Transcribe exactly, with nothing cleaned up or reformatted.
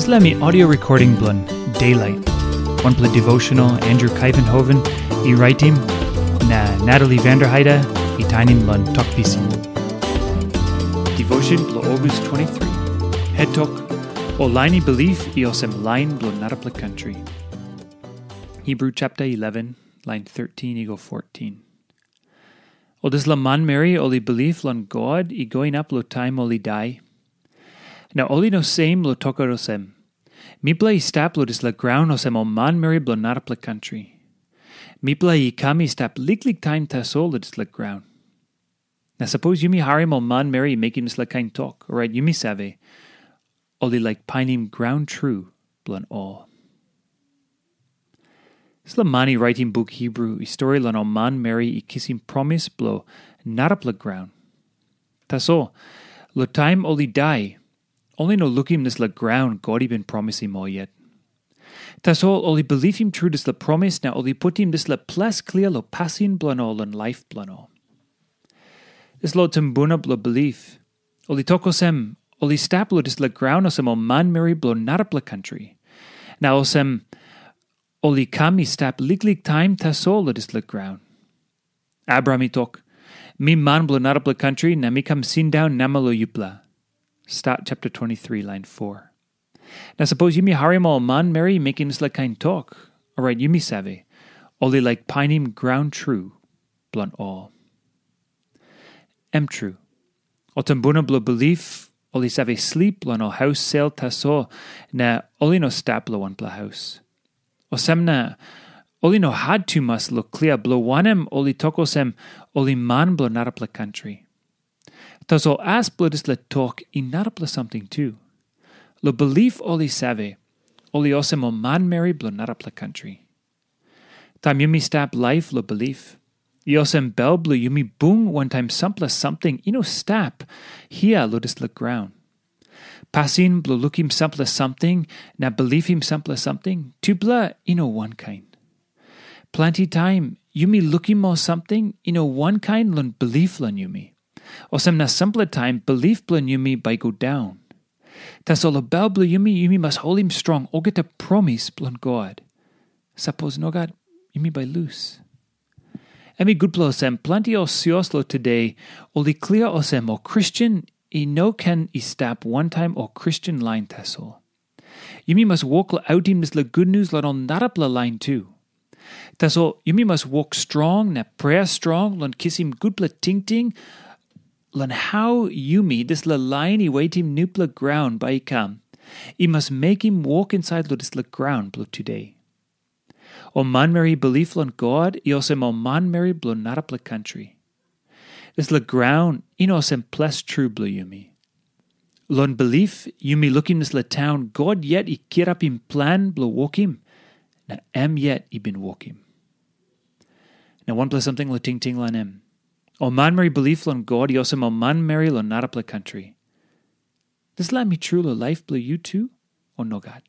Dispela mi audio recording bilong Daylight, wanpela devotional Andrew Kaivenhoven i raitim, na Natalie Vanderheide i tainim long Tok Pisin. Devotion bilong August twenty-three. Het tok, ol lain i bilip i olsem lain bilong narapela kantri. Hebru chapter eleven, line thirteen i go fourteen. Ol dispela manmeri ol i bilip long God i go inap long taim ol i dai. Na ol i no sem long tokaut olsem, mipela i stap long dispela graun olsem ol manmeri bilong narapela kantri. Mipela i kam i stap liklik taim tasol long dispela graun. Na sapos yumi harim ol manmeri i mekim dispela kain tok, orait yumi save, ol i laik painim graun tru bilong ol. Dispela man i raitim buk Hebru i stori long ol manmeri i kisim promis bilong narapela graun. Tasol, long taim ol i dai, ol i no lukim dispela graun God i bin promisim ol yet. Tasol ol i bilipim tru dispela promis na ol i putim dispela ples klia long pasin bilong ol long laip bilong ol. Dispela tumbuna bilong bilip, ol i tok olsem, ol i stap long dispela graun olsem ol manmeri bilong narapela kantri. Na olsem, ol i kam i stap liklik taim tasol long dispela graun. Abraham i tok, mi man bilong narapela kantri na mi kam sindaun namel long yupela. Stat chapter twenty-three, line four. Na sapos yumi harim ol manmeri i mekim dispela kain tok, orait yumi save, ol i laik painim graun tru bilong ol. Em tru, ol tumbuna bilong bilip, ol i save slip long ol haus sel tasol, na ol i no stap long wanpela haus. Olsem na, ol i no hat tumas long klia bilong wanem ol i tok olsem, ol i man bilong narapela kantri. Tasol as bilong dispela tok i narapela samting tu. Long bilip ol i save, ol i olsem ol manmeri bilong narapela kantri. Taim yumi stap laip long bilip, i olsem bel bilong yumi bung wantaim sampela samting i no stap hia long dispela graun. Pasin bilong lukim sampela samting na bilipim sampela samting, tupela i no wankain. Planti taim yumi lukim ol samting i no wankain long bilip long yumi. Olsem na sampela taim bilip bilong yumi bai i go daun. Tasol long bel bilong yumi, yumi mas holim strong olgeta promis bilong God. Sapos nogat, yumi bai lus. Em i gutpela olsem, planti ol sios long tude, ol i klia olsem ol Kristen i no ken i stap wantaim ol Kristen lain tasol. Yumi mas wok long autim dispela gutnius long ol narapela lain tu. Tasol yumi mas wok strong na prea strong long kisim gutpela tingting long hau yumi, dispela lain i wetim nupela graun bai i kam, i mas mekim wok insait long dispela graun bilong tude. Ol manmeri i bilip long God i olsem ol manmeri bilong narapela kantri. Dispela graun i no olsem ples tru bilong yumi. Long bilip, yumi lukim dispela taun God yet i kirapim plan bilong wokim, na em yet i bin wokim. Na wanpela samting long tingting long em. Ol manmeri bilip long God i olsem ol manmeri long narapela kantri. Dispela em i tru long laip bilong yu tu, o nogat?